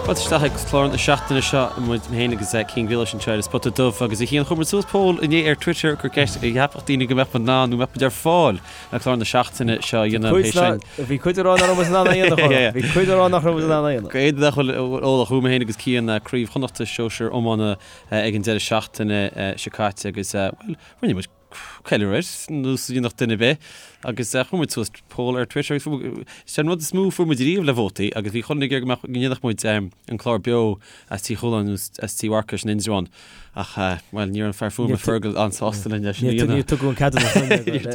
Fáilte isteach ag clár na seachtaine seo muid féin agus Cian Grealish anseo ar an Spota Dubh agus a Chian chuir muid suas poll inné ar Twitter gur ceist an gceapfadh daoine go mbeadh muid in ann nó mbeadh muid ar fáil le clár na seachtaine seo a dhéanamh é sin. Bhí cuid ag rá nach raibh muid in ann é a dhéanamh. Bhí cuid ag rá nach raibh muid in ann é a dhéanamh. Go éadain nach bhfuil eolach uaim féin agus Cian Craobh Chonnachta Sóisir Iomána ag an deireadh seachtaine seo caite agus bhuel rinne muid ceiliúradh air, nós a dhéanfadh duine ar bith, agus chuir muid suas poll ar Twitter agus is é an rud is mó a fuair muid riamh le vótaí agus bhí chuile dhuine ag iarraidh go mbeadh, go ndéanfadh muid an clár beo as Tigh Chualáin nó as Tigh Mharcais in Indreabhán ach, bhuel, ní raibh an fear fuaime Fergal an-sásta linn leis sin a dhéanamh. Níor tugadh an ceadúnas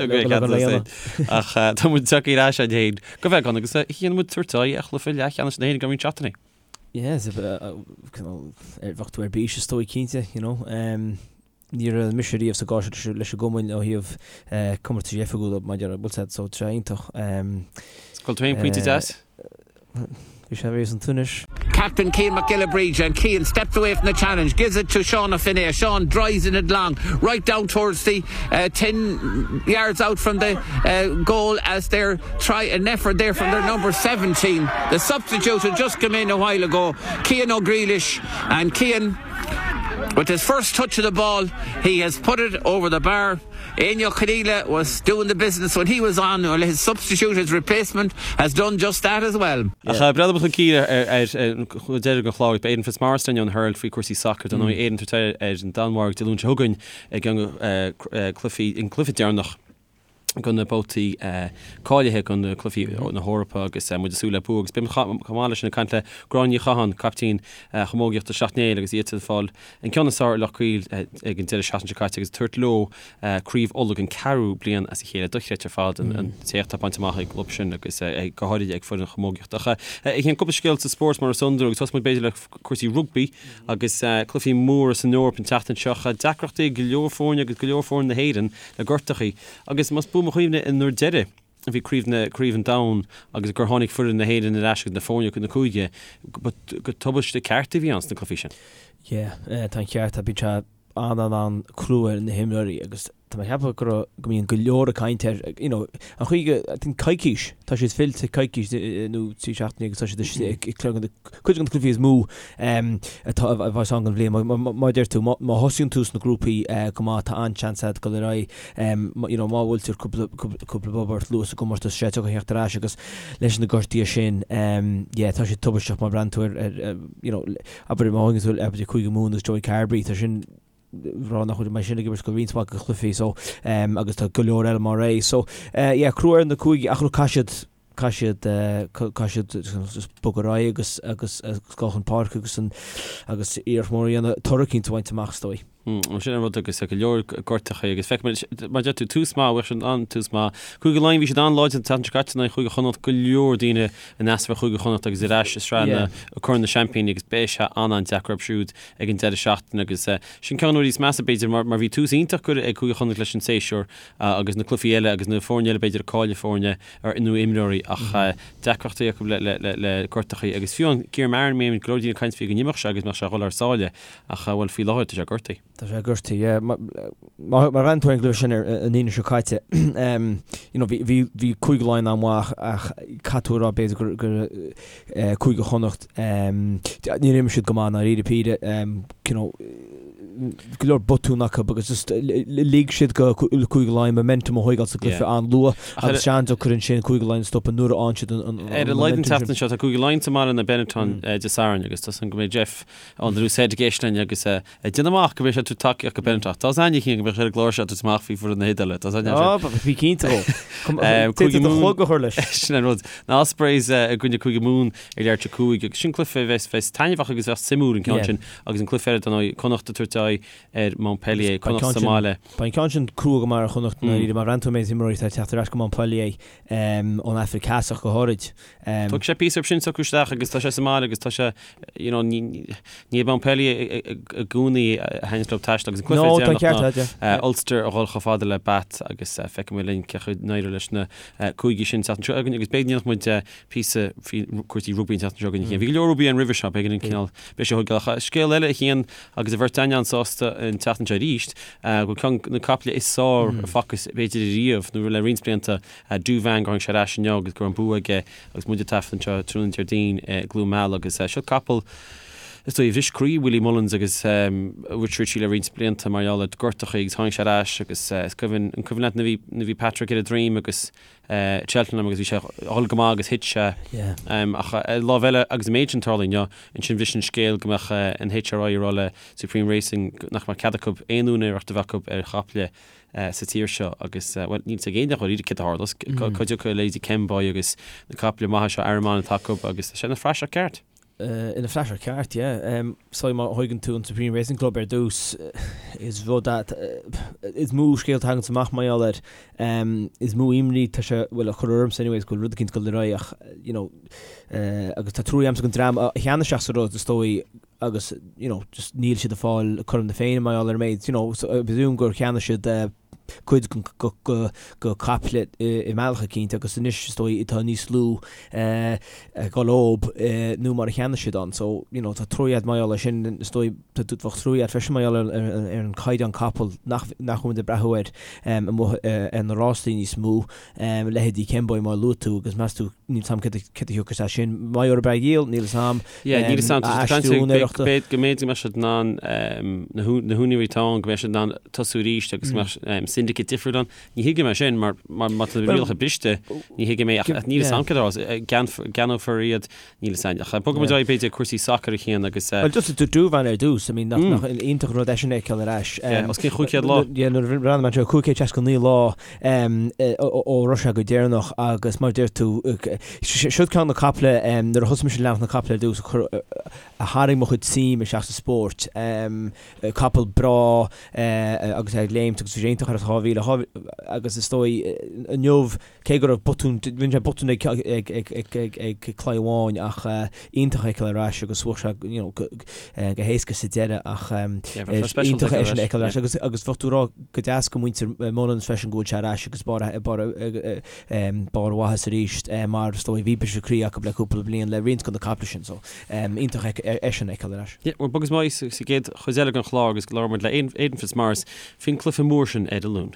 dúinn le go dhéanamh. Ach tá muid tagtha ar ais againn féin go beagán agus chonaic muid tabhairt aghaidh ar chluiche leathcheannais na hÉireann i gceann roinnt seachtainí. Yeah, bheadh tú ar bís is dóigh cinnte, you know. Ní raibh mise riamh sa gcás seo leis an gcumann ó thaobh comórtais oifigiúla maidir le bhfuil so tá sé iontach. Bhfuil tú aon pointe deas? Bhí sé bhí san Tunis. Captain Cian Mac Giolla Bríde and Cian steps away from the challenge, gives it to Seán Ó Finnéa. Seán drives in it long, right down towards the 10 yards out from the goal as they're try an effort there from their number 17. The substitute had just come in a while ago, Cian Ó Grealish, and Cian With his first touch of the ball, he has put it over the bar. Éinne Ó Conghaile was doing the business when he was on, well his substitute, his replacement, has done just that as well. Ach breathnóidh muid chun cinn ar deireadh den chlár, beidh Aidan Fitzmaurice linn ón Herald faoi chúrsaí sacair. Dar ndóigh Éirinn ag tabhairt aghaidh ar an Danmhairg Dé Luain seo chugainn i gceann de chluichí, an cluiche deireanach do na babhtaí cáilithe do na cluichí na hEorpa agus muid ag súil le bua agus beidh muid chomh maith leis sin ag caint le Gráinne Ní Chatháin, caiptín chamógaíochta Shleacht Néill agus iad ag fáil an ceann is fearr ar Loch Caol ag an deireadh seachtaine seo caite agus ag tabhairt leo Craobh Uladh don ceathrú bliain as a chéile. Dochreidte ar fad an t-éacht atá bainte amach ag an gclub sin agus go háirithe ag foireann chamógaíochta. Ach a Chian cúpla scéal sa spórt mar is iondúil agus tosóidh muid b'fhéidir le cúrsaí rugbaí agus cluichí móra san Eoraip an tseachtain seo. Deacrachtaí ag go leor foirne agus go leor foirne na hÉireann le gortachaí. Agus más buan mo chuimhne an uair deiridh a bhí craobh na, craobh an domhain agus gur tháinig foireann na hÉireann ar ais agus na foirne na cúige, ba, go tubaiste ceart a bhí ann sna cluichí sin. Yeah, tá an ceart, bíonn sé an-an-an-crua ar na himreoirí agus tá mé ag ceapadh go raibh, go mbíonn go leor ag caint air, you know, an chaoi go, I think coicís, tá siad fillte coicís nó 3 seachtainí agus tá siad istigh ag cuid de na cluichí is mó atá a bheas ann don bhliain. Mar a deir tú, má thosaíonn tú sna grúpaí go maith, tá an-seans agat dul ar aghaidh. You know, má bhfuiltear cúpla cúpla bob ort luath sa gcomórtas, sé tiocfaidh theacht ar ais agus leis na gortuithe sin, yeah, tá sé tubaisteach má bhreathnaíonn tú ar, ar, you know, abair má thagann tú abair Cúige Mumhan agus Joey Carbery, tá sin rá nach bhfuil mé sin ag imirt go roinnt mhaith de chluichí so agus tá go leor eile mar é. So yeah, crua ar na cúigí ach look, caithfidh siad caithfidh siad caithfidh siad just bogadh ar aghaidh agus agus agus dul chun páirce agus an agus iarracht mhór a dhéanamh toradh eicínt a bhaint amach is dóigh. Mm, sin an rud agus go leor gortachaí agus feicimid mar deir tú tús maith bheadh sin an-tús maith. Cúige Laighean bhí siad an-láidir an tseachtain seo caite in aghaidh Chúige Chonnacht go leor daoine in easnamh ar Chúige Chonnacht agus ar ais i sraith na Corn na Seaimpíní agus beidh sé an-an-deacair orthu siúd ag an deireadh seachtaine agus sin ceann de na rudaí is measa b'fhéidir mar mar bhí tús iontach curtha ag Cúige Chonnacht leis an séasúr agus na cluichí eile agus na foirne eile b'fhéidir ag cailleadh foirne ar nó imreoirí ach deacrachtaí acu le le le le gortachaí agus fiú an Ciaran Marron mé go leor daoine ag caint faoi go n-imeodh sé agus mbeadh sé ag dhul thar sáile ach bhuel faoi láthair tá sé gortaithe. Tá sé gortaithe, yeah. Má bhreathnaíonn tú ar an gcluiche sin ar an Aoine seo caite, you know, bhí bhí bhí Cúige Laighean an-mhaith ach caithfidh tú a rá b'fhéidir gur gur Cúige Chonnacht níor imir siad go maith i ndáiríre píre, you know, go leor botún acu agus just lig siad go Cúige Laighean momentum a thóigeáil sa gcluiche an-luath agus sé an-deacair ansin Cúige Laighean a stopadh nuair a fhaigheann siad an momentum sin. Ar a laghad an tseachtain seo tá Cúige Laighean sa mbaile in Benetton Dé Sathairn agus tá súil agam go mbeidh Jeff ón The Loose Head ag éisteacht linn agus ag déanamh amach go mbeidh sé ag tabhairt tacaíocht go Benetton. Tá aithne aige go mbeadh sé ar an gclár seo ag tabhairt amach faoi foireann na hIodáile. Tá aithne air. Bí cinnte dhó. Cúige Mumhan. clog a chur leis. Sin an rud. Na Ospreys i gcoinne Cúige Mumhan ag leathuair tar éis a 5 agus sin cluiche a bheas bheas taitneamhach agus bheas suimiúil an ceann sin agus an cluiche eile dar ndóigh Connacht ag tabhairt aghaidh ar Montpellier, Connacht sa mbaile. Beidh an ceann sin crua go maith ar Chonnacht i ndáiríre má bhreathnaíonn tú ar an méid imreoirí atá ag teacht ar ais go Montpellier ón Afraic Theas ach go háirid. Tógfaidh sé píosa orthu sin socrú isteach agus tá sé sa mbaile agus tá sé you know ní ní Montpellier i gcónaí a thaitníonns leo taisteal agus an cluiche No, tá an ceart deireanach ná Ulster a dhul chomh fada le Bath agus feicfidh muid linn cén chaoi a n-éireoidh leis na cúigí sin an tseachtain seo againn agus b'fhéidir go ndéanfadh muid píosa faoi cúrsaí rugbaí an tseachtain seo againn a Chian. Bhí go leor rugbaí ann roimhe seo, b'éigean an cineál beidh sé thógáil. Ach scéal eile a Chian agus an bheirt againn anso. an-sásta an tseachtain seo arís go bhfuil ceann de na caiple is fearr a facthas b'fhéidir ariamh nó le roinnt blianta, Douvan, gur tháinig sé ar ais inniu agus go raibh an bua aige agus muid ag taifead anseo tráthnóna Déardaoin i gCluain Meala agus seo capall is dóigh a bhris croí Willie Mullins agus Richie Ricci le roinnt blianta mar gheall ar gortachaí agus tháinig sé ar ais agus is cuimhin, an cuimhin leat nuair a bhí Patrick ar a droim agus Cheltenham agus bhí sé ag dul go maith agus thit sé. Ach ar lámh eile agus an méid sin tarlaithe inniu, ansin bhris an scéal go mbeadh an HRI ag rá le Supreme Racing nach mbeadh cead acu aon úinéireacht a bheith acu ar chaiple sa tír seo agus, bhuel, níl a fhios ag éinne dháiríre céard a tharlós. Cá dtiocfaidh a leithéidí Kemboy agus na caiple maithe seo Arraman atá acu agus tá sé ina phraiseach ceart. Ina phraiseach ceart, yeah. So má thóigeann tú an Supreme Racing Club ar dtús, is rud é, is mó scéalta a thaganns amach mar gheall air. Is mó imní tá sé, bhuel, a chur ormsa anyways, go bhfuil rud eicínt ag dul ar aghaidh ach, you know, agus tá trua agamsa don dream a cheannaigh isteach sa rud, is dóigh, agus, you know, just níl siad ag fáil cothrom na Féinne mar gheall ar an méid, you know, so I presume gur cheannaigh siad cuid de chaiple i mbealach eicínt agus anois is dóigh tá níos lú ag dul dhób nó mar a cheannaigh siad ann. So, you know, tá trua agat mar gheall air sin, is dóigh tá bheadh trua agat freisin mar gheall ar an caighdeán capall nach nach bhfuil muid ag breathú air amuigh ar na rástaí níos mó, leithéidí Kemboy mar a luaigh tú agus meas tú níl 's a'm céard a thiocfas as sin. Má gheobhaidh breith dhíol, níl 'fhios a'm. Yeah, níl 'fhios a'm. Tá siad ag caint go mb'fhéidir go mbeadh siad in ann na húinéirí atá ann, go mbeadh siad in ann tosú arís agus go mbeadh syndicate difriúil ann. Ní thuigim é sin mar má tá na rialacha briste, ní thuigim é ach níl 'fhios a'm céard a tharlós. Ceannófar iad, níl 'fhios a'm. Ach bogfaidh muid ar aghaidh b'fhéidir cúrsaí sacair a Chian agus. Well just Douvan ar dtús, I mean nach iontach an rud eisean a fheiceáil ar ais. Yeah, os cionn 500 lá. Yeah, nuair a bhreathnaigh mé anseo, 569 lá. ó raibh sé go deireanach agus mar a deir tú, siod ceann de na caiple, nuair a thosaigh mise ag leanacht na caiple ar dtús, a tharraing mo chuid suim isteach sa spórt. Capall breá agus é ag léimt agus bhí sé iontach ar an 2000 agus is dóigh inniu, cé go raibh botún, rinne sé botún ag claí amháin ach iontach é a fheiceáil ar ais agus bhuaigh sé you know go héasca sa deireadh ach iontach é sin a fheiceáil ar ais agus agus bheadh tú ag rá go deas do mhuintir Mullins freisin go bhfuil sé ar ais agus barr barr barr a mhaitheas arís mar is dóigh bhí briseadh croí acu le cúpla bliain le roinnt de na caiple sin so iontach é sin a fheiceáil ar ais. Yeah, bhuel bogfaidh muid sa gcéad chuid eile den chlár agus labhróidh muid le Aidan Fitzmaurice faoin cluiche mór sin ar an Luan.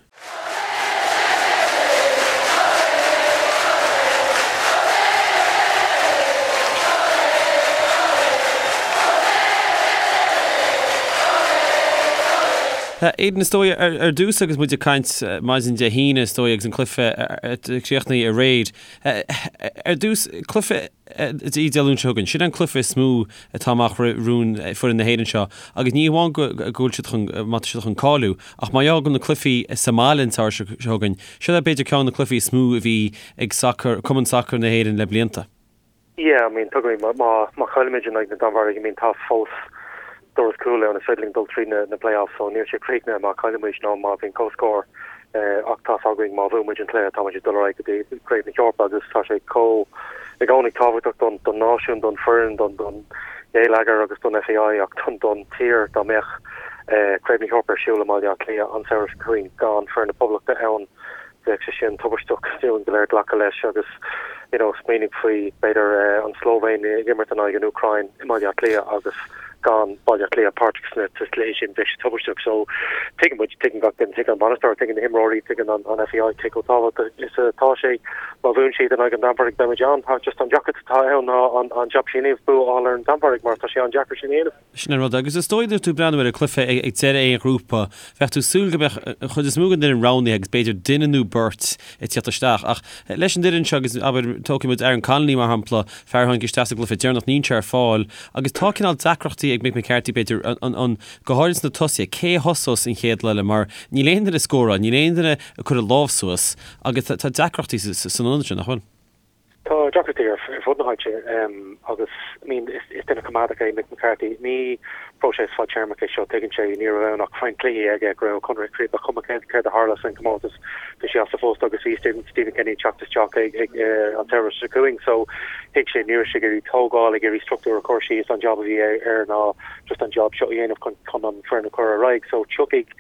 Aidan, is dóigh, ar dtús agus muid ag caint maidin Dé hAoine, is dóigh, agus an cluiche críochnaithe aréir. Ar dtús, cluiche Dé Luain seo chugainn. Sin an cluiche is mó atá amach romhainn foireann na hÉireann seo agus ní hamháin go bhfuil siad chun, má tá siad chun cáiliú, ach mar gheall go na cluichí sa mbaile an tsamhradh seo chugainn, seo é b'fhéidir ceann de na cluichí is mó a bhí ag sacar, Cumann Sacair na hÉireann le blianta. Yeah, I mean, tuigimid, má, má, má chaillimid in aghaidh na Danmhairge, I mean, tá fós doras cúil ann, is féidir linn dul tríd na, na play-offs, so níl sé críochnaithe má chailleann muid nó má bhíonn comhscór, eh, ach tá's againn má bhuann muid an cluiche, tá muid ag dul ar aghaidh go dtí Craobh na hEorpa agus tá sé chomh, i gcónaí tábhachtach don, don náisiún, don foireann, don, don gheilleagar agus don FAI ach don, don tír dá mbeadh, eh, Craobh na hEorpa ar siúl i mBaile Átha Cliath an samhradh seo chugainn gan foireann na Poblachta ann. Bheadh sé sin tubaisteach dúinn go léir glacadh leis agus you know smaoinigh faoi b'fhéidir an tSlóivéin ag imirt in aghaidh an Úcráin i mBaile Átha Cliath agus gan Baile Átha Cliath páirteach sna sa chluiche sin bheadh sé tubaisteach. So tuigeann muid, tuigeann gach duine, tuigeann an bainisteoir, tuigeann na himreoirí, tuigeann an an FAI cé chomh tábhachtach is atá sé. Má bhuann siad in aghaidh an Danmhairg beidh muid ann. Tá just an deacracht atá ann ná an an jab sin a dhéanamh, bua a fháil ar an Danmhairg mar tá sé an-deacair sin a dhéanamh. Sin an rud. Agus is dóigh nuair tú ag breathnú ar an cluiche ag deireadh aon ghrúpa, bheadh tú ag súil go mbeadh an chuid is mó den fhoireann roghnaithe agus b'fhéidir duine nó beirt ag tíocht isteach. Ach leis an fhoireann seo agus, abair, tógfaidh muid Aaron Connolly mar shampla, fear a tháinig isteach sa gcluiche deireanach, níl sé ar fáil agus tá cineál deacrachtaí ag Mick McCarthy b'fhéidir, an, an, go háirid sna tosaithe, cé a thosós an chéad lá eile mar níl aon duine ag scóráil, níl aon duine ag cur a lámh suas agus tá deacrachtaí san ionad sin, nach bhfuil? Tá deacrachtaí ar fud na háite agus I mean is duine coimeádach é Mick McCarthy. Ní próiseas fadtéarmach é seo, tuigeann sé. Ní raibh ann ach roinnt cluichí aige go raibh a chonradh ag críochnú, ba chuma céard a tharla san comórtas, bhí sé as a phost agus bhí Stephen Kenny ag teacht isteach ag an samhradh seo chugainn. So thuig sé ní raibh sé ag iarraidh tógáil, ag iarraidh struchtúr a chur síos, an job a bhí air ná just an job seo a dhéanamh chun an foireann a chur ar aghaidh. So tiocfaidh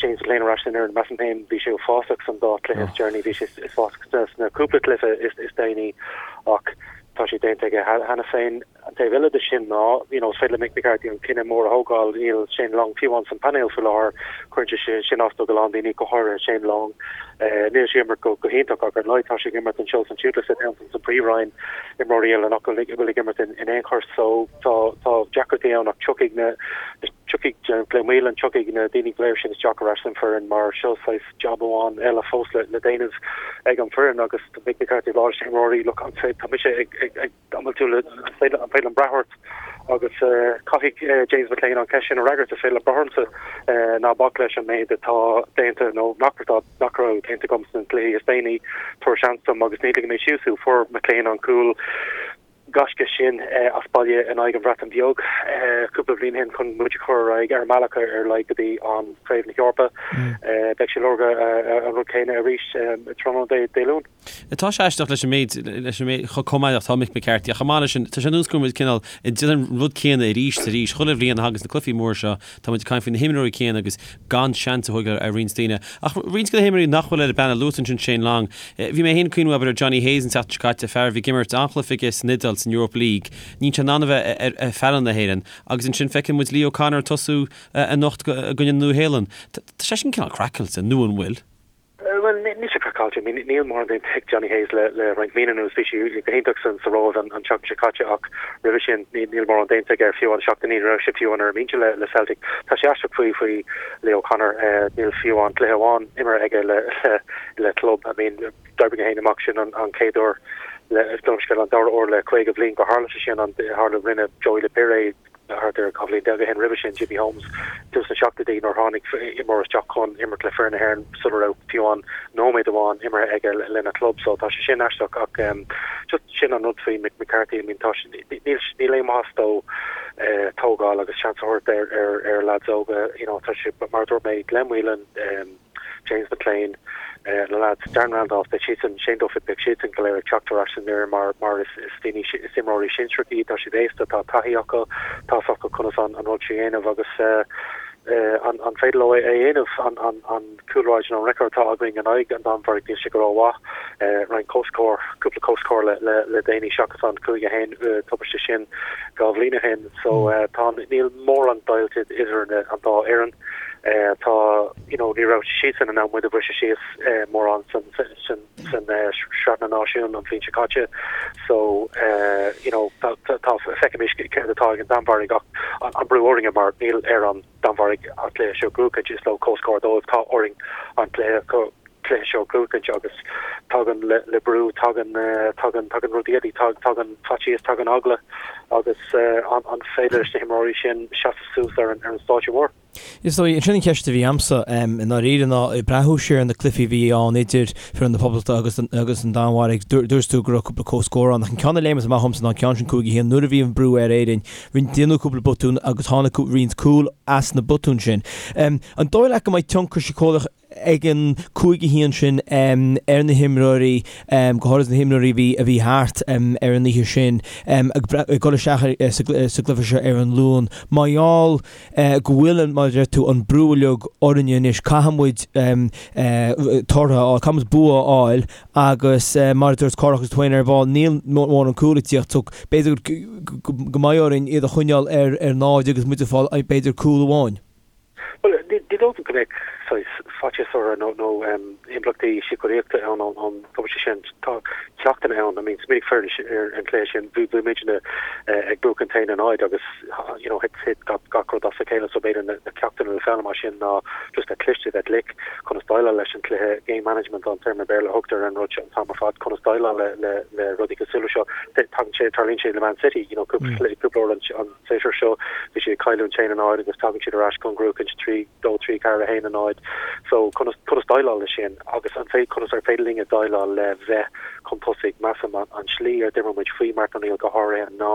James McClean ar ais san fhoireann, measaim féin, bhí sé uafásach san dá chluiche is deireanaí, bhí sé uafásach sna cúpla cluiche is déanaí ach tá sé déanta aige cheana féin. An taobh eile de sin ná, you know, is féidir le Mick McCarthy an cinneadh mór a thógáil, níl Shane Long fiú amháin san painéal faoi láthair, cuireann sé sin as do go lán daoine, go háirithe Shane Long. Níl sé ag imirt go hiontach ach ar a laghad tá sé ag imirt anseo san Tuaisceart san Phríomhroinn, imreoirí eile nach bhfuil ag imirt in aon chor so tá tá deacrachtaí ann ach tiocfaidh na tiocfaidh Glenn Whelan, tiocfaidh na daoine go léir sin isteach ar ais san foireann mar seo saghas jab amháin eile fós le déanamh ag an foireann agus Mick McCarthy ag rá leis na himreoirí look an tá mise ag ag An bhfuil tú le, an féidir liom brath ort? Agus caithfidh James McClean an cheist sin a fhreagairt, is féidir leat brath ormsa, ná bac leis an méid atá déanta nó nach nach raibh déanta agam sna cluichí is déanaí, tabhair seans dom agus ní ligfidh mé síos thú. Fuair McClean an cúl gaisce sin as baile in aghaidh an Bhreatain Bheag cúpla bliain ó shin chun muid a chur ar aghaidh ar an mbealach ar a laghad go dtí an Craobh na hEorpa. Beidh sé ag lorg an rud céanna arís tráthnóna Dé Luain. Tá sé aisteach leis an méid, leis an méid, chomh maith atá Mick McCarthy ach chomh maith leis sin, tá sé ar nós go bhfuil muid cineál ag déanamh an rud céanna arís is arís. Chuile bhliain a thagas na cluichí móra seo, tá muid ag caint faoi na himreoirí céanna agus gan seans a thógáil ar roinnt daoine. Ach roinnt de na himreoirí nach bhfuil ar an bpainéal, luaigh tú ansin Shane Long. Bhí mé féin ag cuimhniú abair ar Johnny Hayes an tseachtain seo caite, fear a bhí ag imirt an-chluiche aige san Iodáil san Europa League. Níl sé in ann a bheith ar ar phainéal na hÉireann. Agus ansin feiceann muid Lee O'Connor ag tosú anocht i gcoinne na Nua-Shéalainne. Tá sé sin cineál craiceáilte, nó an bhfuil? Bhuel, níl sé craiceáilte. I mean, níl mórán déanta ag Johnny Hayes le le roinnt míonna anuas. Bhí sé go hiontach san sa Róimh an an tseachtain seo caite ach roimhe sin ní níl mórán déanta aige fiú amháin seachtain ní raibh sé fiú amháin ar an mbinse le le Celtic. Tá sé aisteach faoi faoi Lee O'Connor. Níl fiú amháin cluiche amháin imeartha aige le le le club. I mean, d'oibrigh mé féin amach sin an an chéad uair le gabh mo leithscéal an dara huair le 50 bliain gur tharla sé sin an tharla rinne Joey Le Pire é Thart ar 12 bhliain ó shin roimhe sin, Jimmy Holmes, tús na seachtóidí nuair a tháinig imreoir isteach chun imirt le foireann na hÉireann sula raibh fiú amháin nóiméad amháin imeartha aige lena chlub. So tá sé sin aisteach ach just sin an rud faoi Mick McCarthy. I mean tá sé, níl, níl aon mhaitheas dó tógáil agus seans a thabhairt ar, ar, ar lads óga. You know, tá sé, mar a dúirt mé, Glenn Whelan, James McClean, na lads, Darren Randolph, beidh siadsan, Shane Duffy, beidh siadsan go léir ag teacht ar ais san fhoireann mar mar is is daoine is imreoirí sinsearacha iad, tá siad aosta, tá taithí acu, tá's acu conas an an rud seo a dhéanamh agus an an féidir leo é a dhéanamh, an an an cúlráid nó an record atá againn in aghaidh an Danmhairg, níl sé go rómhaith, roinnt comhscór, cúpla comhscór le le le déanaí seachas an 5-1 tubaiste sin dhá bhliain ó shin so tá níl mórán deighilt idir an dá fhoireann. Tá, you know, ní raibh siadsan in ann muid a bhriseadh síos mórán san san san Sraith na Náisiún an bhliain seo caite. So, you know, tá tá feicfimis céard atá ag an Danmhairg ach an brú orainne mar níl ar an Danmhairg an cluiche seo a ghnóthachaint, is leo comhscór dóibh, tá orainn an cluiche cluiche seo a ghnóthachaint agus tagann le le brú, tagann tagann tagann rudaí eile, tagann faitíos, tagann eagla agus an an féidir leis na himreoirí sin seasamh suas ar an ar an stáitse mór. Is dóigh, sin an cheist a bhí a'msa, i ndáiríre, ná ag breathnú siar ar na cluichí a bhí ann idir foireann na Poblachta agus agus an Danmhairg, dúirt tú go raibh cúpla comhscór ann, ach an ceann a léimeas amach dhomsa ná an ceann sin 5-1, nuair a bhí an brú ar Éirinn, rinne déanadh cúpla botún agus tháinig roinnt cúl as na botúin sin. An dóigh leat go mbeidh tionchar síceolaíoch ag an 5-1 sin ar na himreoirí, go háirithe na himreoirí a bhí a bhí thart ar an oíche sin, ag dul isteach sa gcluiche seo ar an Luan. Mar gheall go bhfuil, mar a deir tú, an brú uilig orainne anois, caithfidh muid tortha a fháil, caithfidh muid bua a fháil agus mar a dúirt Cárthach agus tú féin ar ball, níl mórán cúl ag tíocht so b'fhéidir go mbeidh orainn iad a choinneáil ar náid agus muid ag fáil b'fhéidir cúl amháin. Bhuel, ní dóigh liom go mbeadh saghas faitíos orthu nó nó impleachtaí síceolaíochta ann ón tubaiste sin. Tá ceachtanna ann. I mean, smaoinigh foireann ar an chluiche sin, bhí bhí muidne ag buachan a haon a náid agus you know thit thit gach gach rud as a chéile so b'fhéidir na na ceachtanna le foghlaim as sin ná just bheith cliste, bheith glic, conas déileáil leis an chluiche, game management an téarma Béarla a thugtar ar an rud seo an t-am ar fad, conas déileáil le le le rudaí cosúil leis seo. Tagann sé, tarlaíonn sé le Man City, you know, cúpla cúpla uair an an séasúr seo, bhí siad ag cailliúint 1-0 agus tagann siad ar ais chun gnóthachaint 3, 2, 3, 4, 1, 0. So conas, conas déileáil leis sin agus an fé, conas ar féidir linne déileáil le bheith chun tosaigh, measaim an, an slí ar d'imir muid faoi Martin O'Neill go háirithe ná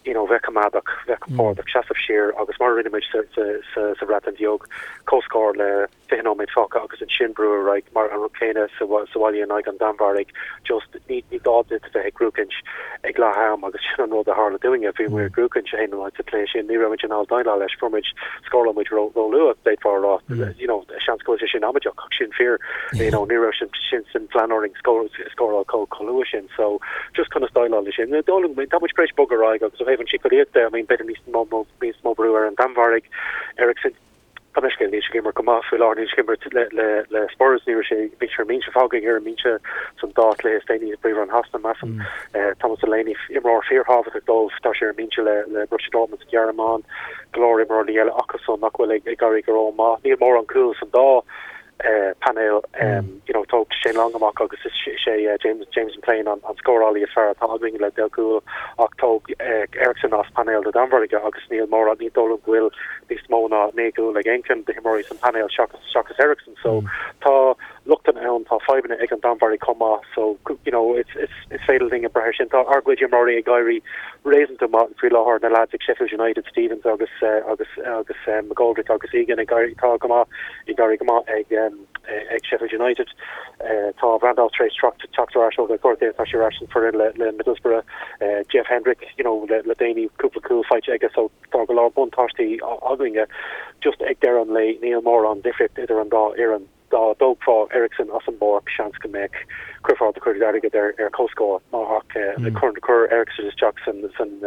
you know. know, bheith coimeádach, bheith compordach, seasamh siar agus mar a rinne muid sa, sa, sa, sa Bhreatain Bheag, comhscór le 20 nóiméad fágtha agus ansin brú ar aghaidh mar an rud céanna sa bhaile in aghaidh an Danmhairg, just ní ní gá duit a bheith ag gruachaint ag leath am agus sin an rud a tharla dúinne, bhí muid ag gruachaint 1-0 sa chluiche sin, ní raibh muid in ann déileáil leis, fuair muid, scóráil muid ró ró luath d'fhéadfá a rá, you know, seans go bhfuil sé sin amaideach ach sin fíor, you know, ní raibh sin sin san phlean orainn scóráil chomh chomh luath sin so just conas déileáil leis sin. Tá muid tar éis bogadh ar aghaidh agus ó thaobh an síceolaíocht de, I mean b'fhéidir níos mó níos mó brú ar an Danmhairg, Eriksen, Tá mé scéal níl sé ag imirt go maith faoi láthair, níl sé ag imirt le le le Spurs, ní raibh sé, bhí sé ar an mbinse, fágadh ar an mbinse san dá chluiche is déanaí i bPríomhroinn Shasana, measaim. Thomas Delaney, imreoir fíorthábhachtach dóibh, tá sé ar an mbinse le le Borussia Dortmund sa Ghearmáin, go leor imreoirí eile acusan nach bhfuil ag ag éirí go rómhaith. Níl mórán cúl san dá painéal, you know, tóg Shane Long amach agus is é James James McLean an scórálaí is fearr atá againn le 10 gcúl ach tóg Eriksen as painéal na Danmhairge agus níl mórán, ní dóigh liom go bhfuil níos mó ná 9 gcúl ag aon cheann de na himreoirí san painéal seachas seachas Eriksen so tá lochtanna ann, tá fadhbanna ag an Danmhairg chomh maith so you know it's it's is féidir linn brath air sin. Tá ár gcuid imreoirí ag éirí réasúnta maith faoi láthair, na lads ag Sheffield United, Stevens agus agus agus McGoldrick agus Egan ag éirí tá go maith ag éirí go maith ag ag Sheffield United. Tá Randolph tar éis teacht teacht ar ais ó ghortú, tá sé ar ais san foireann le le Middlesbrough. Jeff Hendrick, you know, le le déanaí cúpla cúl faighte aige so tá go leor buntáistí againne. Just ag deireadh an lae níl mórán difríocht idir an dá fhoireann. Dá dtógfá Eriksen as an bpáirc, seans go mbeadh, chuirfeá do chuid airgid ar ar comhscór ach cuir cuir Eriksen isteach san san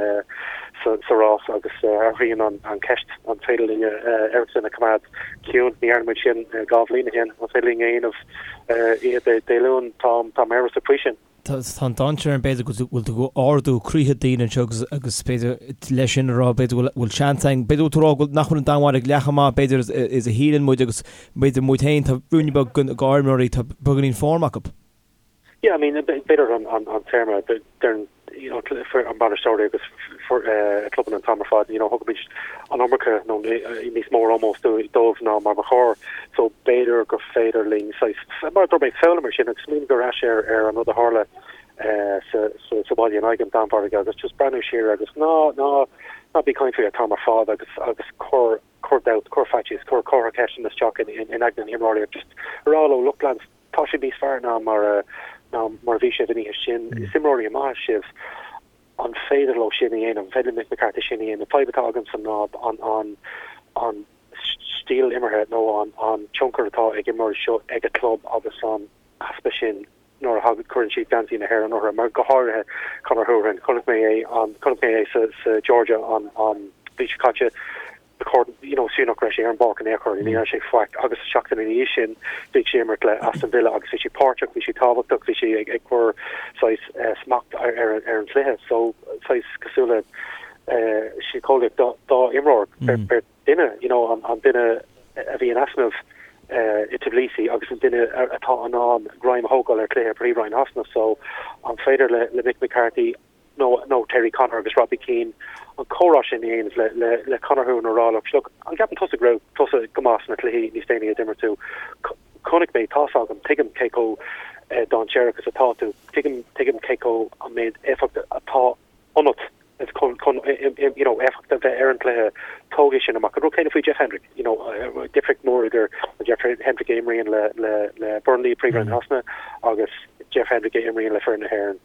sa rás agus athraíonn an an ceist an féidir linn Eriksen a choimeád ciúin. Ní dhearna muid sin 2 bhliain ó shin. An féidir linn a dhéanamh oíche Dé Luain? Táim táim amhrasach faoi sin. Tá an dainséar ann b'fhéidir go bhfuil tú ag ardú croíthe daoine anseo agus agus b'fhéidir leis sin a rá b'fhéidir go bhfuil seans againn, b'fhéidir go bhfuil tú ag rá go nach bhfuil an Danmhairg leath chomh maith b'fhéidir is a shíleann muid agus b'fhéidir muid féin tá ruainne beag den ár n-imreoirí tá beagáinín form acu. Yeah, I mean b'fhéidir an an téarma deireann you know, an bainisteoirí agus clubanna an t-am ar fad, you know, thugaimid an iomarca nó níos mó ómós dóibh ná mar ba chóir. So b'fhéidir gur féidir linn saghas, mar a dúirt mé, foghlaim ar sin agus smaoineamh ar ais ar ar an rud a tharla sa sa sa bhaile in aghaidh an Danmhairg agus just breathnú siar agus ná ná ná bí ag caint faoi an t-am ar fad agus agus cuir cuir dabht, cuir faitíos, cuir comhartha ceisteanna isteach in in aigne na himreoirí agus just a rá leo, look lads, Tá sibh níos fearr ná mar a ná mar a bhí sibh an oíche sin. Is imreoirí maithe sibh. An féidir leo sin a dhéanamh? An féidir le Mick McCarthy sin a dhéanamh? Fadhb atá agamsa ná an an an stíl imeartha nó an an tionchar atá ag imreoirí seo ag a club agus an easpa sin nuair a thagann cuireann siad geansaí na hÉireann orthu, mar go háirithe Conor Hourihane. Chonaic mé é an chonaic mé é sa sa Georgia an an mhí seo caite. you know, is fiú nach raibh sé ar an bpáirc in aon chor, ní dhearna sé faic agus seachtain ina dhiaidh sin bhí sé ag imirt le Aston Villa agus bhí sé páirteach, bhí sé tábhachtach, bhí sé ag cur saghas smacht ar ar an chluiche so saghas cosúil le síceolaíocht dá imreoir beirt duine, you know, an an duine a bhí in easnamh i Tbilisi agus an duine atá in ann greim a thógáil ar chluiche Príomhroinn Shasana so an féidir le le Mick McCarthy nó nó Terry Connor agus Robbie Keane an comhrá sin a dhéanamh le le le Conor Hourihane a rá look look an gceapann tusa go raibh tusa go maith sna cluichí níos déanaí a d'imir tú chonaic mé tá's agam tuigim cé chomh dainséarach is atá tú tuigim tuigim cé chomh an méid éifeacht atá ionat is chun chun you know éifeacht a bheith ar an gcluiche tóg é sin amach an rud céanna faoi Jeff Hendrick you know difríocht mór idir Jeff Hendrick a imríonn le le le Burnley Príomhroinn Shasana agus Jeff Hendrick a imríonn le foireann na hÉireann.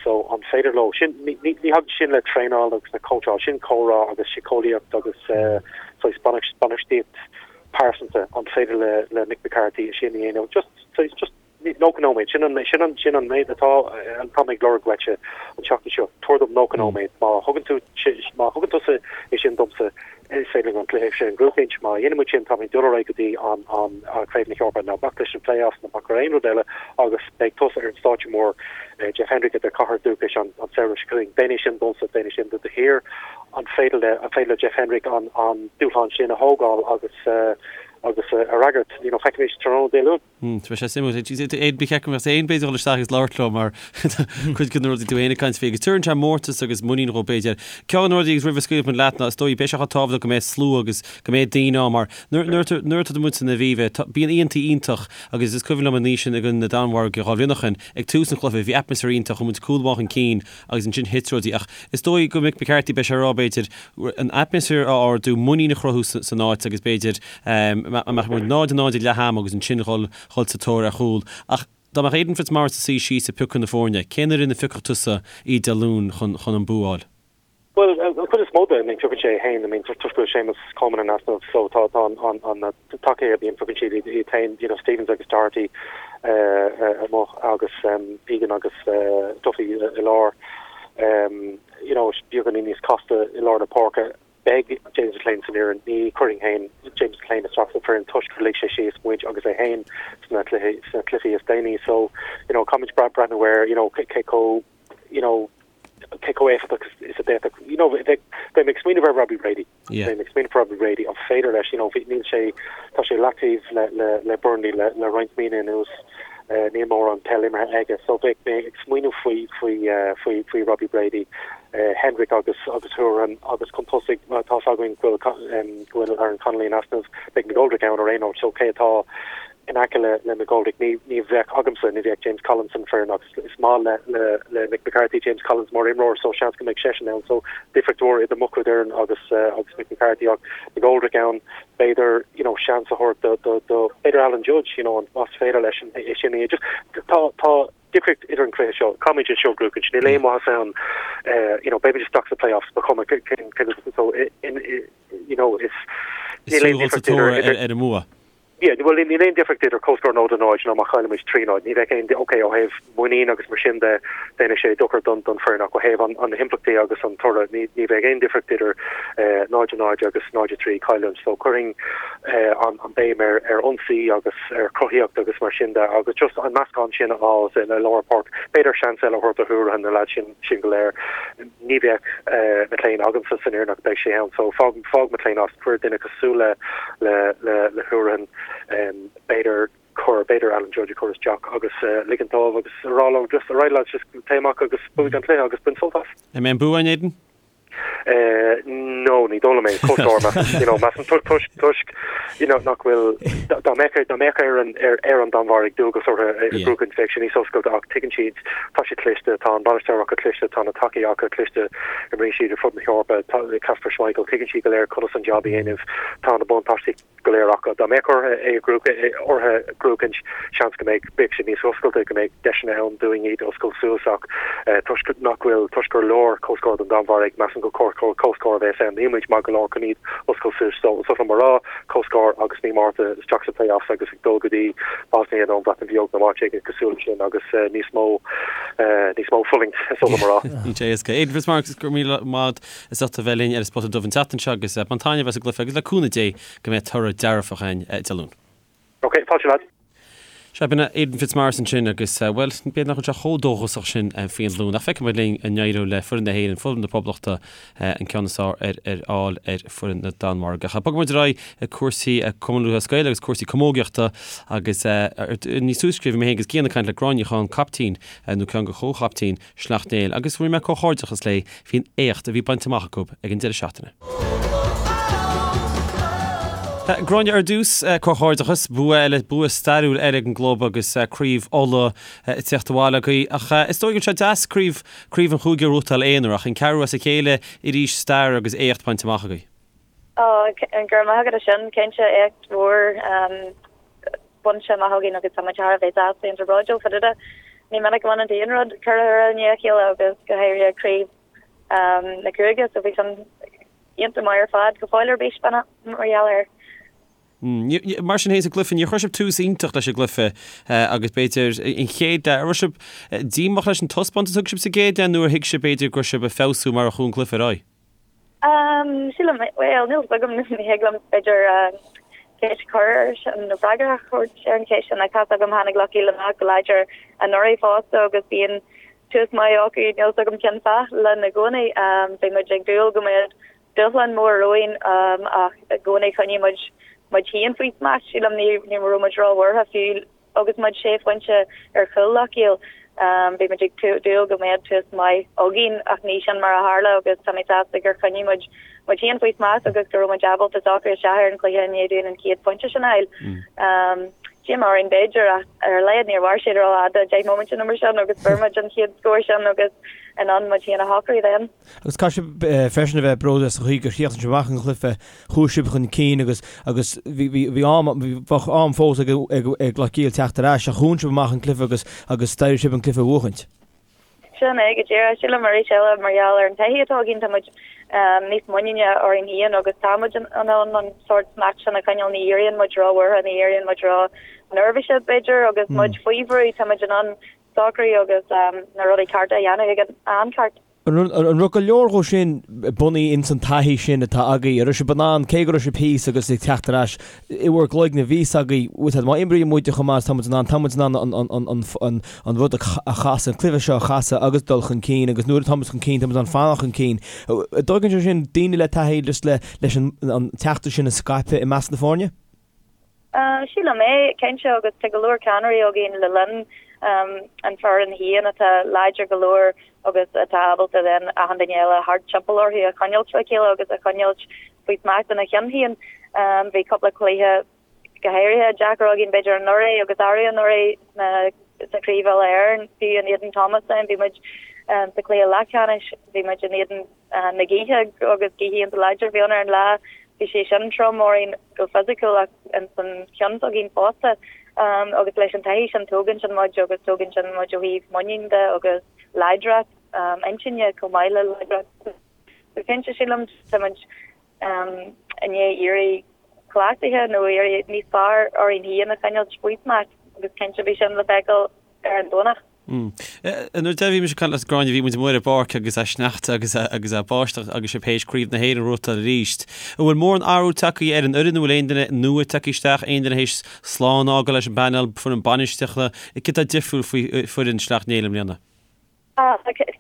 So, an féidir leo sin, ní thagann sin le traenáil agus le cóitseáil, sin comhrá agus síceolaíocht agus saghas bainistíocht pearsanta, an féidir le le Mick McCarthy sin a dhéanamh? Just, saghas, just 90 nóiméad, sin an, sin an, sin an méid atá, atá mé ag lorg uaitse an tseachtain seo, tabhair dom 90 nóiméad, má thugann tú, má thugann tusa é sin domsa, Is féidir linn an cluiche sin a ghnóthachaint. Má dhéanann muid sin, táimid ag dul ar aghaidh go dtí an Craobh na hEorpa. Ná bac leis na play-offs, ná bac ar aon rud eile agus beidh tusa ar an stáitse mór, Jeff Hendrick, i do chathair dúchais an samhradh seo chugainn. Déan é sin domsa, déan é sin do do thír. An féidir le, an féidir le Jeff Hendrick an dúshlán sin a thógáil agus. agus a fhreagairt. You know, feicfimid tráthnóna Dé Luain. Beidh sé suimiúil. Aidan, ba cheart go mbeadh tú féin b'fhéidir dul isteach agus labhairt leo mar cuid de na rudaí tú féin ag caint faoi agus tabharann sé mórtas agus muinín dhóibh b'fhéidir. Ceann de na rudaí agus roimh a scaoilfidh muid leat ná is dóigh beidh sé chomh tábhachtach go mbeidh slua agus go mbeidh daoine ann mar nuair nuair atá muid san Aviva bíonn oícheantaí iontach agus is cuimhin liom an oíche sin i gcoinne na Danmhairge 2 bhliain ó shin ag tús an chluiche bhí atmaisféar iontach chuaigh muid cúl amháin chun cinn agus ansin thit rudaí ach is dóigh go Mick McCarthy beidh sé ag rá b'fhéidir an atmaisféar a ardú, muinín a chruthú san áit agus b'fhéidir a mbeadh muid 0-0 ag leath ama agus ansin dhul dhul sa tóir ar chúl. Ach dá mbeadh Aidan Fitzmaurice ag suí síos ag piocadh na foirne, cén fhoireann a phiocfadh tusa oíche Dé Luain chun chun an bua a fháil? Bhuel, an chuid is mó de, I mean, piocann sé é féin, I mean, toisc go bhfuil Séamus Coleman in easnamh, so tá tá an an an na tacaí a bhíonn piocann siad iad iad féin, you know, Stephens agus Doherty amuigh agus Egan agus Duffy i lár. You know, beagáinín níos casta i lár na páirce. Beidh James McClean san fhoireann. Ní chuirfinn féin James McClean isteach san fhoireann toisc gur lig sé síos muid agus é féin sna cluichí sna cluichí is déanaí. So, you know, caithfimid breathnú air, you know, cé chomh, you know, cé chomh éifeachtach is a d'fhéadfadh, you know, bheinn ag smaoineamh ar Robbie Brady. Bheinn ag smaoineamh ar Robbie Brady, an féidir leis, you know, níl sé, tá sé leataobh le, le, le Burnley le, le roinnt míonna anuas, níl mórán peil imeartha aige, so bheadh mé ag smaoineamh faoi, faoi, faoi, faoi Robbie Brady, Hendrick agus, agus Hourihane agus chun tosaigh, tá fhios againn go bhfuil, go bhfuil Aaron Connolly in easnamh, beidh McGoldrick ann ar aon nós, so cé atá in aice le, le McGoldrick, ní, ní bheadh agamsa, ní bheadh James Collins san foireann ach is maith le, le, le Mick McCarthy, James Collins mar imreoir so seans go mbeidh seisean ann, so difríocht mhór idir mo chuid fhoireann agus, agus Mick McCarthy ach McGoldrick ann, b'fhéidir, you know, seans a thabhairt do, do, do, b'fhéidir Alan Judge, you know, an, más féidir leis an, é sin a just, tá, tá difríocht idir an cluiche seo, caithfimid é seo a bhuachaint, níl aon mhaitheas ann, you know, beimid isteach sna playoffs, ba chuma cén, cén, so, in, you know, is, níl aon difríocht idir, idir, ar an mbua. Yeah, bhuel, níl aon difríocht idir comhscór 0-0 nó má chaillimid 3-0. Ní bheadh aon, ok, ó thaobh muinín agus mar sin de, déanfaidh sé dochar don don foireann ach ó thaobh an an na himpleachtaí agus an toradh, ní ní bheadh aon difríocht idir 0-0 agus 0-3 cailliúint. So cuirfinn an an béim ar ar ionsaí agus ar chruthaíocht agus mar sin de agus just an meascán sin a fháil i lár páirce. B'fhéidir seans eile a thabhairt do Hourihane, na leaids sin sin go léir. Ní bheadh McClean agamsa san fhoireann ach beidh sé ann so fág fág McClean as, cuir duine cosúil le le le le Hourihane, b'fhéidir cuir b'fhéidir Alan Judge a chur isteach agus ligint dóibh agus a rá leo just alright lads just téigh amach agus buaigh an cluiche agus bain sult as. An mbeidh an bua againn Aidan? No, ní dóigh liom é, comhscór measaim, you know, measaim toisc toisc you know, nach bhfuil, dá mbeadh dá mbeadh ar an ar ar an Danmhairg dualgas orthu é a bhuachaint bheadh sé níos oscailte ach tuigeann siad, tá siad cliste, tá an bainisteoir acu cliste, tá na tacaí acu cliste, imríonn siad ar fud na hEorpa, tá Kasper Schmeichel, tuigeann siad go léir conas an jab a dhéanamh, tá na buntáistí go léir acu. Dá mbeadh orthu é a orthu a bhuachaint, seans go mbeadh beadh sé níos oscailte, go mbeadh deiseanna ann dúinn iad a oscailt suas ach toisc nach bhfuil, toisc gur leor comhscór don Danmhairg, measaim gur comhscór a bheas ann. Níl muid maith go leor chun iad a oscailt suas. So is oth liom a rá, comhscór agus mí Márta isteach sa playoffs agus ag dul go dtí Bosnia nó an Bhreatain Bheag nó áit éigin cosúil leis sin agus níos mó níos mó fulaingt is oth liom a rá. Níl sé éasca. Aidan Fitzmaurice, go raibh míle maith agat as ucht a bheith linn ar an Spota Dubh an tseachtain seo agus bain taitneamh as an gcluiche agus le cúnamh Dé go mbeidh toradh dearfach againn Dé Luain. Ok, fáilte lads. Sea, b'in Aidan Fitzmaurice ansin agus, bhuel, b'fhéidir nach bhfuil sé chomh dóchasach sin faoin Luan ach feicfidh muid linn an n-éireoidh le foireann na hÉireann, foireann na Poblachta, an ceann is fearr ar ar fháil ar foireann na Danmhairge. Ach bogfaidh muid ar aghaidh ag cúrsaí Cumann Lúthchleas Gael agus cúrsaí camógaíochta agus níos túisce bhí mé féin agus Cian ag caint le Gráinne Ní Chadhain, caiptín, nó ceann de chomhchaiptín Shleacht Néill agus rinne mé comhghairdeachas léi faoin éacht a bhí bainte amach acu ag an deireadh seachtaine. Gráinne, ar dtús, comhghairdeachas, bua eile, bua stairiúil eile ag an gclub agus craobh Uladh ag teacht abhaile agaibh. Ach is dóigh go bhfuil sé deas craobh, craobh an chúige a ghnóthachtáil aonair ach an ceathrú as a chéile arís stair agus éacht bainte amach agaibh. Ó, go raibh maith agat as sin, cinnte éacht mhór. bainte amach againn agus tá muid thar a bheith sásta iontach bródúil fá dtaobh de. Ní minic a bhaineann tú aon rud ceithre huaire i ndiaidh a chéile agus go háirithe craobh na cúige so bhí sin iontach maith ar fad go fóill ar bís mar gheall air. Mar sin féin sa gcluiche, níor chuir sibh tús iontach leis an gcluiche agus b'fhéidir an chéad leath, an raibh sibh díomách leis an taispeántas a thug sibh sa gcéad leath nó ar thuig sibh b'fhéidir go raibh sibh ag feabhsú mar a chuaigh an cluiche ar aghaidh? Sílim, bhuel, níl 's agam, ní thig liom, b'fhéidir, ceist a chur air sin nó freagra a thabhairt ar an cheist sin ach tá 's agam tháinig Loch Caol amach go láidir anuraidh fosta agus bíonn tús maith acu, níl 's agam cén fáth linn i gcónaí. Bhí muid ag dúil go mbeadh dúshlán mór romhainn ach i gcónaí choinnigh muid. muid féin faoi smacht. Sílim ní ní raibh muid róbhuartha fiú agus muid sé phointe ar chúl Loch Ghill. Bhí muid ag dúil go mbeadh tús maith againn ach ní sin mar a tharla agus tá mé sásta gur choinnigh muid muid féin faoi smacht agus go raibh muid ábalta socrú isteach ar an chluiche i ndiaidh dúinn an chéad phointe sin a fháil. Díomá orainn b'fhéidir ach ar a laghad níor mhair sé rófhada, 10 móimint nó mar sin agus fuair muid an chéad scór sin agus in ann muid féin a shocrú then. Agus caithfidh sibh freisin a bheith bródúil as an chaoi gur chríochnaigh sibh amach an cluiche, chuaigh sibh chun cinn agus agus bhí bhí bhí am bheadh am fós ag ag ag Loch Ghill teacht ar ais ach dhún sibh amach an cluiche agus agus d'éirigh sibh an cluiche a bhuachaint. Sin é go díreach. Sílim arís eile mar gheall ar an taithí atá againn tá muid níos muiníne orainn féin agus tá muid in ann an sórt smacht sin a choinneáil. Ní éiríonn muid róbhuartha, ní éiríonn muid ró-neirbhíseach b'fhéidir agus muid faoi bhrú tá muid in ann socrú agus na rudaí cearta a dhéanamh ag an am ceart. An raibh go leor dhó sin bunaithe ins an taithí sin atá agaibh? An raibh sibh in ann, cé go raibh sibh thíos agus ag teacht ar ais, i bhur gcloigne bhí fhios agaibh, bhfuil fhios a'd, má imríonn muide chomh maith is tá muid in ann, tá muid in ann an rud a chasadh, an cluiche seo a chasadh agus dul chun cinn agus nuair atá muid chun cinn, tá muid in ann fanacht chun cinn. An dtugann sé sin daoine le taithí just leis an teachtaireacht sin a scaipeadh i measc na foirne? Sílim é, cinnte, agus tá go leor ceannairí againn le linn an foireann féin atá láidir go leor agus atá ábalta then achan duine eile thart timpeall orthu a choinneáilt le chéile agus a choinneáilt faoi smacht ina cheann féin. Bhí cúpla cluiche go háirithe deacair againn b'fhéidir anuraidh agus arú anuraidh sna sa Chraobh Uile-Éireann, fiú in éadan Thomastown bhí muid sa chluiche leathcheannais, bhí muid in éadan na gaoithe agus gaoth iontach láidir a bhí ann ar an lá. Bhí sé sin trom orainn go fisiciúil ach ins an cheann s'againn fosta. Agus leis an taithí sin tógann sin muid agus tógann sin muid ó thaobh muinín de agus láidreacht intinne chomh maith le láidreacht. So cinnte sílim tá muid i ndiaidh éirí cleachtaithe nó éirí níos fearr orainn féin a choinneáilt faoi smacht agus cinnte bhí sin le feiceáil ar an Domhnach. Nuair a bhí mise ag caint leat Gráinne, bhí muid amuigh ar an bpáirc agus é sneachta agus agus é báisteach agus sibh théis Craobh na hÉireann a bhuachtáil arís. An bhfuil mórán athrú tagtha ar an fhoireann, an bhfuil aon duine nua tagtha isteach, aon duine théis slán a fhágáil leis an bpainéal, foireann bainistíochta, céard atá difriúil faoi foireann Shleacht Néill i mbliana?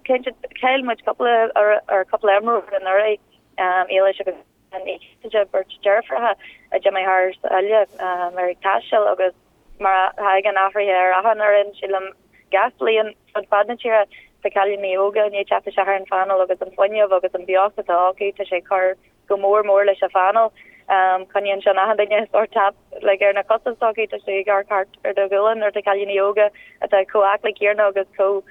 Cinnte, chaill muid cúpla ar cúpla imreoir anuraidh, Éilis agus Ní Chasaide, beirt deirfiúracha a d'imigh thar sáile ar ag taisteal agus mar a thagann athruithe ar achan fhoireann, sílim, gach bliain fud fad na tíre, tá cailíní óga i ndiaidh teacht isteach ar an phainéal agus an fuinneamh agus an beocht atá acu, tá sé ag cur go mór mór leis an phainéal. Coinníonn sin achan duine sórt tap like ar na cosa s'acu, tá sé ag amharc thart ar do ghualainn nuair atá cailíní óga atá chomh aclaí céanna agus chomh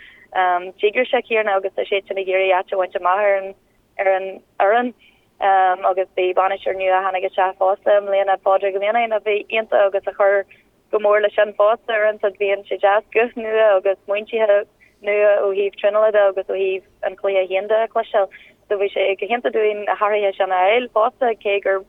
díograiseach céanna agus tá siad sin ag iarraidh áit a bhaint amach ar an ar an fhoireann agus bhí bainisteoir nua a tháinig isteach fosta i mbliana, Pádraig Ó Mianáin, a bhí iontach agus a chuir go mór leis sin fosta. Uaireanta bíonn sé deas guth nua agus smaointithe nua ó thaobh traenála de agus ó thaobh an chluiche féin de a chloisteáil. So bhí sé go hiontach dúinn na hathruithe sin a fháil fosta, cé gur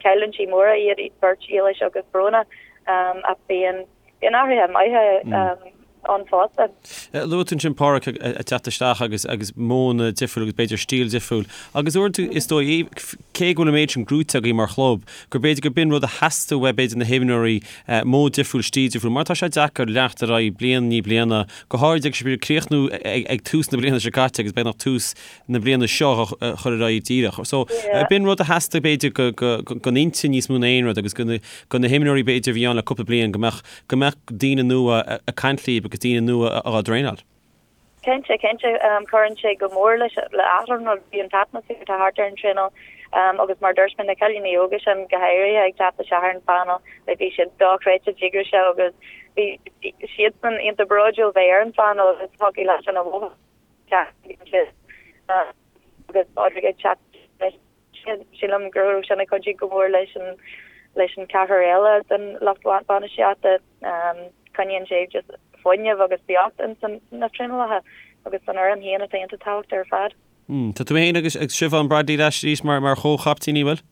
cailliúintí móra iad beirt Éilis agus Bróna ach bíonn bíonn athruithe maithe ann fosta. Luaigh tú ansin Pádraig ag teacht isteach agus agus modhanna difriúil agus b'fhéidir stíl difriúil agus uaireanta is dóigh cé go bhfuil an méid sin gnóite agaibh mar chlub gur b'fhéidir gur b'in rud a theastaigh uaidh b'fhéidir na himreoirí modh difriúil stíl difriúil mar tá sé deacair leanacht ar aghaidh bliain i ndiaidh bliana go háirid agus sibh ag críochnú ag tús na bliana seo caite agus beagnach tús na bliana seo a chur ar aghaidh díreach. So b'in rud a theastaigh b'fhéidir don intinn níos mó ná aon rud agus do na himreoirí b'fhéidir a bhí ann le cúpla bliain go mbeadh go mbeadh daoine nua ag caint líob agus daoine nua á dtraenáil. Cinnte, cinnte. Cuireann sé go mór leis le achan rud, bhí an t-atmaisféar atá thart ar an traenáil agus mar dúirt mé na cailíní óga sin go háirithe ag teacht isteach ar an phainéal, like bhí siad dochreidte díograiseach agus bhí siadsan iontach bródúil bheith ar an phainéal agus thiocfadh leat sin a mhothú. Agus Pádraig ag teacht leis sin, sílim go raibh sin ag cuidiú go mór leis an leis an ceathrar eile den lucht bainistíochta. Coinníonn sé just fuinneamh agus beocht ins na traenálacha agus san fhoireann féin atá iontach tábhachtach ar fad. Tá tú féin agus Siobhán Bradley ar ais arís mar mar chomh-chaiptíní, bhfuil?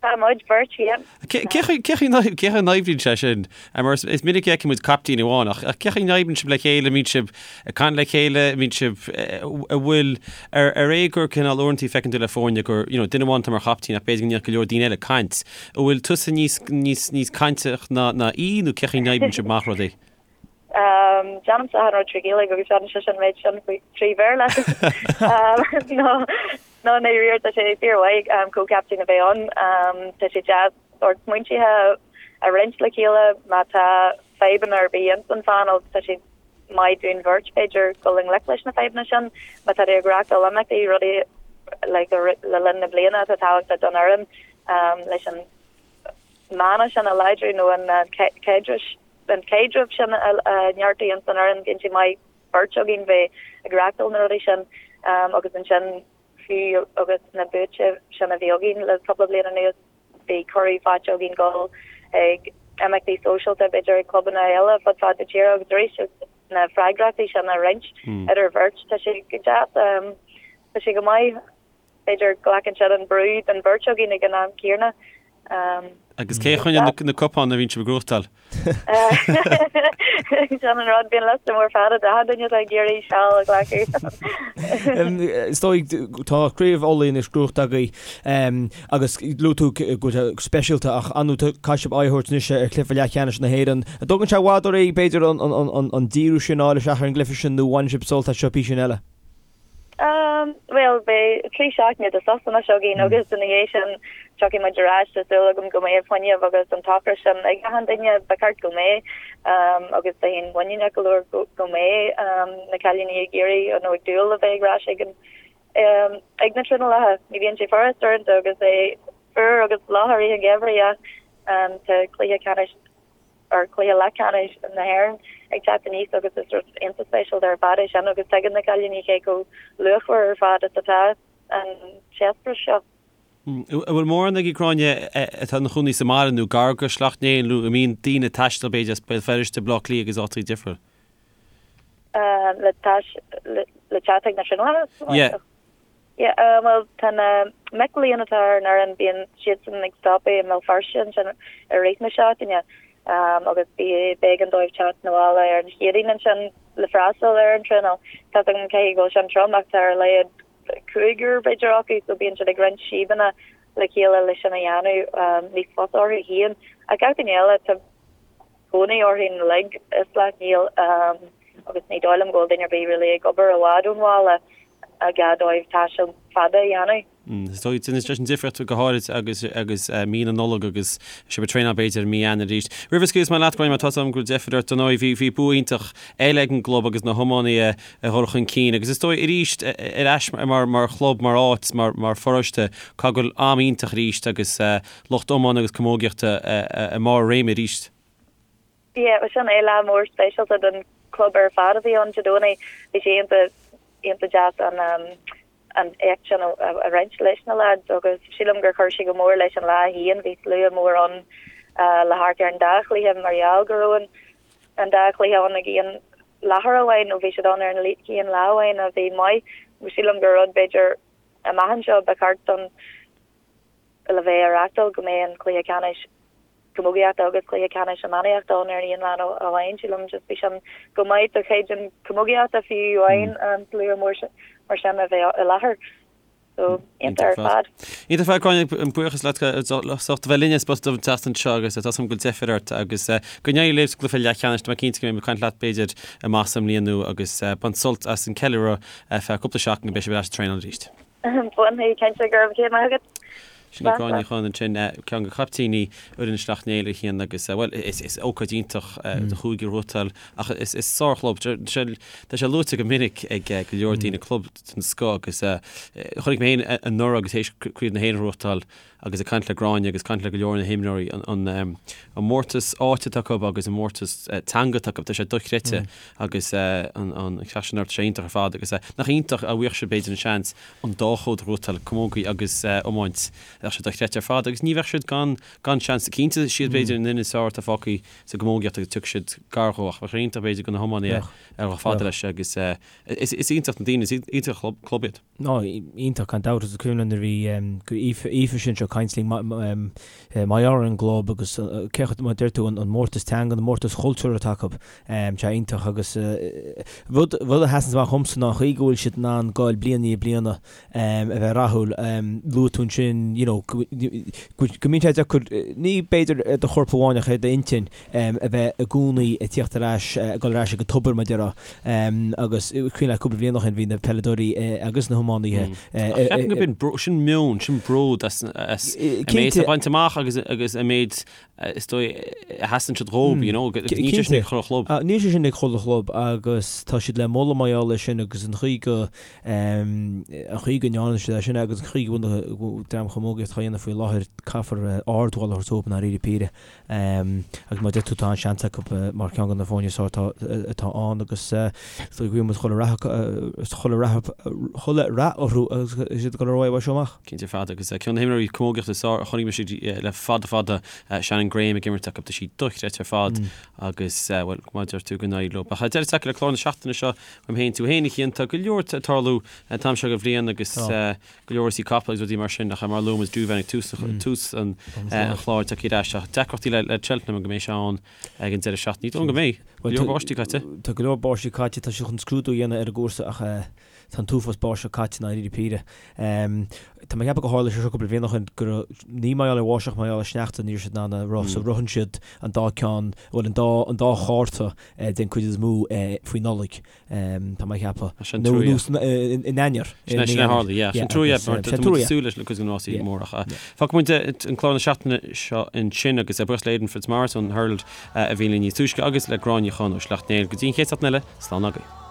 Tá muid beirt, yeah. Cé chaoi a n-oibríonn sé sin? Mar is minic a fheiceann muid caiptín amháin, ach cé chaoi a n-oibríonn sibh le chéile, an mbíonn sibh ag caint le chéile, an mbíonn sibh, an bhfuil, ar é gur cineál uaireanta feiceann tú le foirne gur, you know, duine amháin atá mar chaiptín ach b'fhéidir go ndéanfadh go leor daoine eile caint. An bhfuil tusa níos, níos, níos cainteach ná, ná í nó cé chaoi a n-oibríonn sibh amach rudaí? Déanaimse achan rud trí Ghaeilge agus déanann sise an méid sin trí Bhéarla. No, no, i ndáiríre tá sé fíormhaith comhchaptaen a bheith ann. Tá sé deas. sórt smaointithe a roinnt le chéile má tá fadhbanna ar bith ins an phainéal tá sé maith dúinn bheirt b'fhéidir dul i ngleic leis na fadhbanna sin má tá tú ag reachtáil imeachtaí rudaí like le linn na bliana atá tábhachtach don fhoireann leis an mana sin a láidriú nó an caidreamh an caidreamh sin a neartú ins an fhoireann bíonn sé maith beirt againn bheith ag reachtáil na rudaí sin agus ansin fiú agus na buaite sin a bhí againn le cúpla bliain anuas bhí cuireadh faighte againn dul ag imeachtaí sóisialta b'fhéidir ag clubanna eile fud fad na tíre agus arís na freagrachtaí sin a roinnt idir bheirt tá sé go deas tá sé go maith. B'fhéidir glacann siad an brú den bheirt againn ag an am céanna. Agus cé a choinníonn na cupáin a bhíonn sibh ag gnóthachtáil? Sin an rud, bíonn liosta mór fada d'achan duine atá ag iarraidh seal a ghlacadh. Is dóigh, tá Craobh Uladh anois gnóthaithe agaibh agus luaigh tú go bhfuil sé speisialta ach ar ndóigh caithfidh sibh aghaidh a thabhairt anois ar chluiche leathcheannais na hÉireann. An dtógann sé i bhfad oraibh b'fhéidir an díriú sin a fháil isteach ar an gcluiche sin nó bhaineann sibh sult as seo písín eile? Bhuel, beidh 3 seachtaine de sos anois againn agus ina dhiaidh sin tiocfaidh muid ar ais. Tá súil agam go mbeidh fuinneamh agus an t-ocras sin ag achan duine, ba cheart go mbeidh agus bheinn muiníneach go leor go mbeidh na cailíní ag iarraidh nó ag dúil le bheith ar ais ag an ag na traenálacha. Ní bhíonn sé furast uaireanta agus é fuar agus fliuch i rith an gheimhridh ach tá cluiche ceannais ar chluiche leathcheannais na hÉireann ag teacht aníos agus is rud iontach speisialta ar fad é sin agus tuigeann na cailíní cé chomh luachmhar ar fad is atá an t-eispéireas seo. An bhfuil mórán agaibh Gráinne atá ina chónaí sa mbaile nó gar go Sleacht Néill nó an mbíonn daoine ag taisteal b'fhéidir as Béal Feirste, Baile Átha Cliath agus áiteacha difriúla? Le le teacht ag na traenálacha? Yeah. Yeah, bhuel, tá na mic léinn atá ar an fhoireann, bíonn siadsan ag stopadh i mBéal Feirste ansin i rith na seachtaine agus b'éigean dóibh teacht 'na bhaile ar an Chéadaoin ansin le freastal ar an traenáil. Tá 's agam caithfidh go bhfuil sin trom ach tá ar a laghad cúigear b'fhéidir acu so bíonn siad ag roinnt síobanna le chéile le sin a dhéanamh níos fusa orthu féin. Ach gach duine eile, tá cónaí orthu uilig i Sleacht Néill agus ní dóigh liom go bhfuil duine ar bith really ag obair i bhfad ón bhaile a gá dóibh taisteal fada a dhéanamh. Is dóigh, déanann sé sin difríocht go háirid agus agus mí na Nollag agus sibh ag traenáil b'fhéidir i mí Eanáir arís. Roimh a scaoilfeas mé leat, Gráinne, mar tá 's agam go bhfuil deifir ort, dar ndóigh, bhí bhí bua iontach eile ag an gclub agus na hiománaithe ag dul chun cinn agus is dóigh arís ar ais mar mar chlub, mar áit, mar mar pharóiste, caithfidh go bhfuil am iontach arís agus lucht iomána agus camógaíochta i mbarr a réime arís. Yeah, bhuel sin é lá mór speisialta don chlub ar fad a bhí ann Dé Domhnaigh. Bhí sé iontach, iontach deas an an éacht sin a roinnt leis na lads agus sílim gur chuir sé go mór leis an lá féin. Bhí slua mór ann le hamharc ar an dá chluiche mar gheall go raibh an an dá chluiche ann ag aon láthair amháin nó bhí siad ann ar an aon lá amháin a bhí maith. Sílim gur rud b'fhéidir amach anseo ba cheart don le bheith á reachtáil go mbeidh an cluiche ceannais camógaíochta agus cluiche ceannais iománaíochta ann ar an aon lá amháin. Sílim just bhí sin go maith do chaighdeán camógaíochta fiú amháin an slua mór mar sin a bheith i láthair. So, iontach ar fad. Iontach ar fad, Gráinne, buíochas leat as ucht a bheith linn ar Spota Dubh an tseachtain seo agus tá 's agam go bhfuil deifir ort agus go n-éirí libh sa gcluiche leathcheannais. Tá mé cinnte go mbeidh mé ag caint leat b'fhéidir amach sa mbliain nua agus bain sult as an ceiliúradh ar feadh cúpla seachtain go mbeidh sibh ar ais ag traenáil arís. Bainfidh, cinnte, go raibh maith agat. Sin í Gráinne Ní Chuinn ansin, ceann de chaiptíní fhoireann Shleacht Néill a Chian agus, bhuel, is ócáid iontach do chúige a ghnóthachtáil ach is sárchlub, tá sé luaite go minic ag go leor daoine, club den scoth agus chonaic mé féin anuraidh agus théis Craobh na hÉireann a ghnóthachtáil agus ag caint le Gráinne agus caint le go leor na himreoirí, an mórtas áite atá acu agus an mórtas teanga atá acu, tá sé dochreidte agus an ceacht sin orthu, tá sé iontach ar fad agus nach iontach dá bhfaigheadh siad b'fhéidir an seans an dá chód a ghnóthachtáil, camógaí agus iomáint, bheadh sé dochreidte ar fad agus ní bheadh siad gan gan seans. Cinnte is iad b'fhéidir an fhoireann is fearr atá fágtha sa gcamógaíocht agus tiocfaidh siad gar dhó ach bheadh sé iontach b'fhéidir do na hiománaithe a dhul fada leis agus is iontach na daoine, is iontach an club iad. Nó iontach gan dabht is cuimhin liom nuair a bhí Aoife Aoife sin seo ag caint linn mar gheall ar an gclub agus cé chomh mar a deir tú an mórtas teanga an mórtas chultúir atá acu sé iontach agus rud rud a sheasann amach dhomsa ná an chaoi go bhfuil siad in ann goil bliain i ndiaidh bliana a bheith rathúil luaigh tú ansin you know. know, go mbíonn sé deacair, ní b'fhéidir ar do chorp amháin ach ar d'intinn a bheith i gcónaí ag tíocht ar ais, ag dul ar ais ag an tobar mar a déarfá. Agus cuimhin leat cúpla bliain ó shin bhí na peileadóirí agus na hiománaithe. Ach ceapaim go b'in, sin meon, sin bród as an méid atá bainte amach agus agus an méid is dóigh a sheasann siad dhób, you know, níl sé sin ag chuile chlub. Níl sé sin ag chuile chlub agus tá siad le moladh mar gheall air sin agus an chaoi go an chaoi go ndearna siad é sin agus an chaoi go bhfuil an dream chamógaíocht á dhéanamh faoi láthair, caithfear ardmholadh a thabhairt dóibh i ndáiríre píre. Agus mar a deir tú tá an-seans acu mar cheann de na foirne is fearr atá ann agus is dóigh go bhfuil muid chuile rath chuile rath chuile rath orthu agus iad ag dul ar aghaidh uaidh seo amach. Cinnte ar fad agus ceann de na himreoirí camógaíochta is fearr a chonaic mise le fada fada, Shannon Graham ag imirt acu, tá sí dochreidte ar fad agus bhuel mar a deir tú go n-éirí leo. Ach deireadh tagtha le clár na seachtaine seo uaim féin tú féin a Chian, tá go leor ag tarlú an t-am seo den bhliain agus go leor rásaí capall agus rudaí mar sin ach mar a luaigh muid Douvan ag tús tús an chláir tagtha ar ais ach deacrachtaí le le Cheltenham go mbeidh sé ann ag an deireadh seachtaine. Ní dóigh liom go mbeidh. Go leor báistí caite. Tá go leor báistí caite, tá siad chun scrúdú a dhéanamh ar an gcúrsa ach tá an t-uafás báisteach caite i ndáiríre píre. Tá mé ag ceapadh gur tharla sé seo cúpla bliain ó shin go raibh, ní mar gheall ar bháisteach mar gheall ar sneachta ní raibh siad in ann a rith so ritheann siad an dá ceann, bhuel an dá an dá chárta den chuid is mó faoi Nollaig. Tá mé ag ceapadh. Sin Nó trua. nó in Eanáir. Sin é sin a tharla, yeah. Sin trua, yeah, mar tá muid ag súil leis na cuid de na rásaí móra. Fágfaidh muid an clár na seachtaine seo ansin agus buíochas le Aidan Fitzmaurice ón Herald a bhí linn níos túisce agus le Gráinne Ní Chonaill ó Sleacht Néill. Go dtí an chéad seachtain eile, slán agaibh.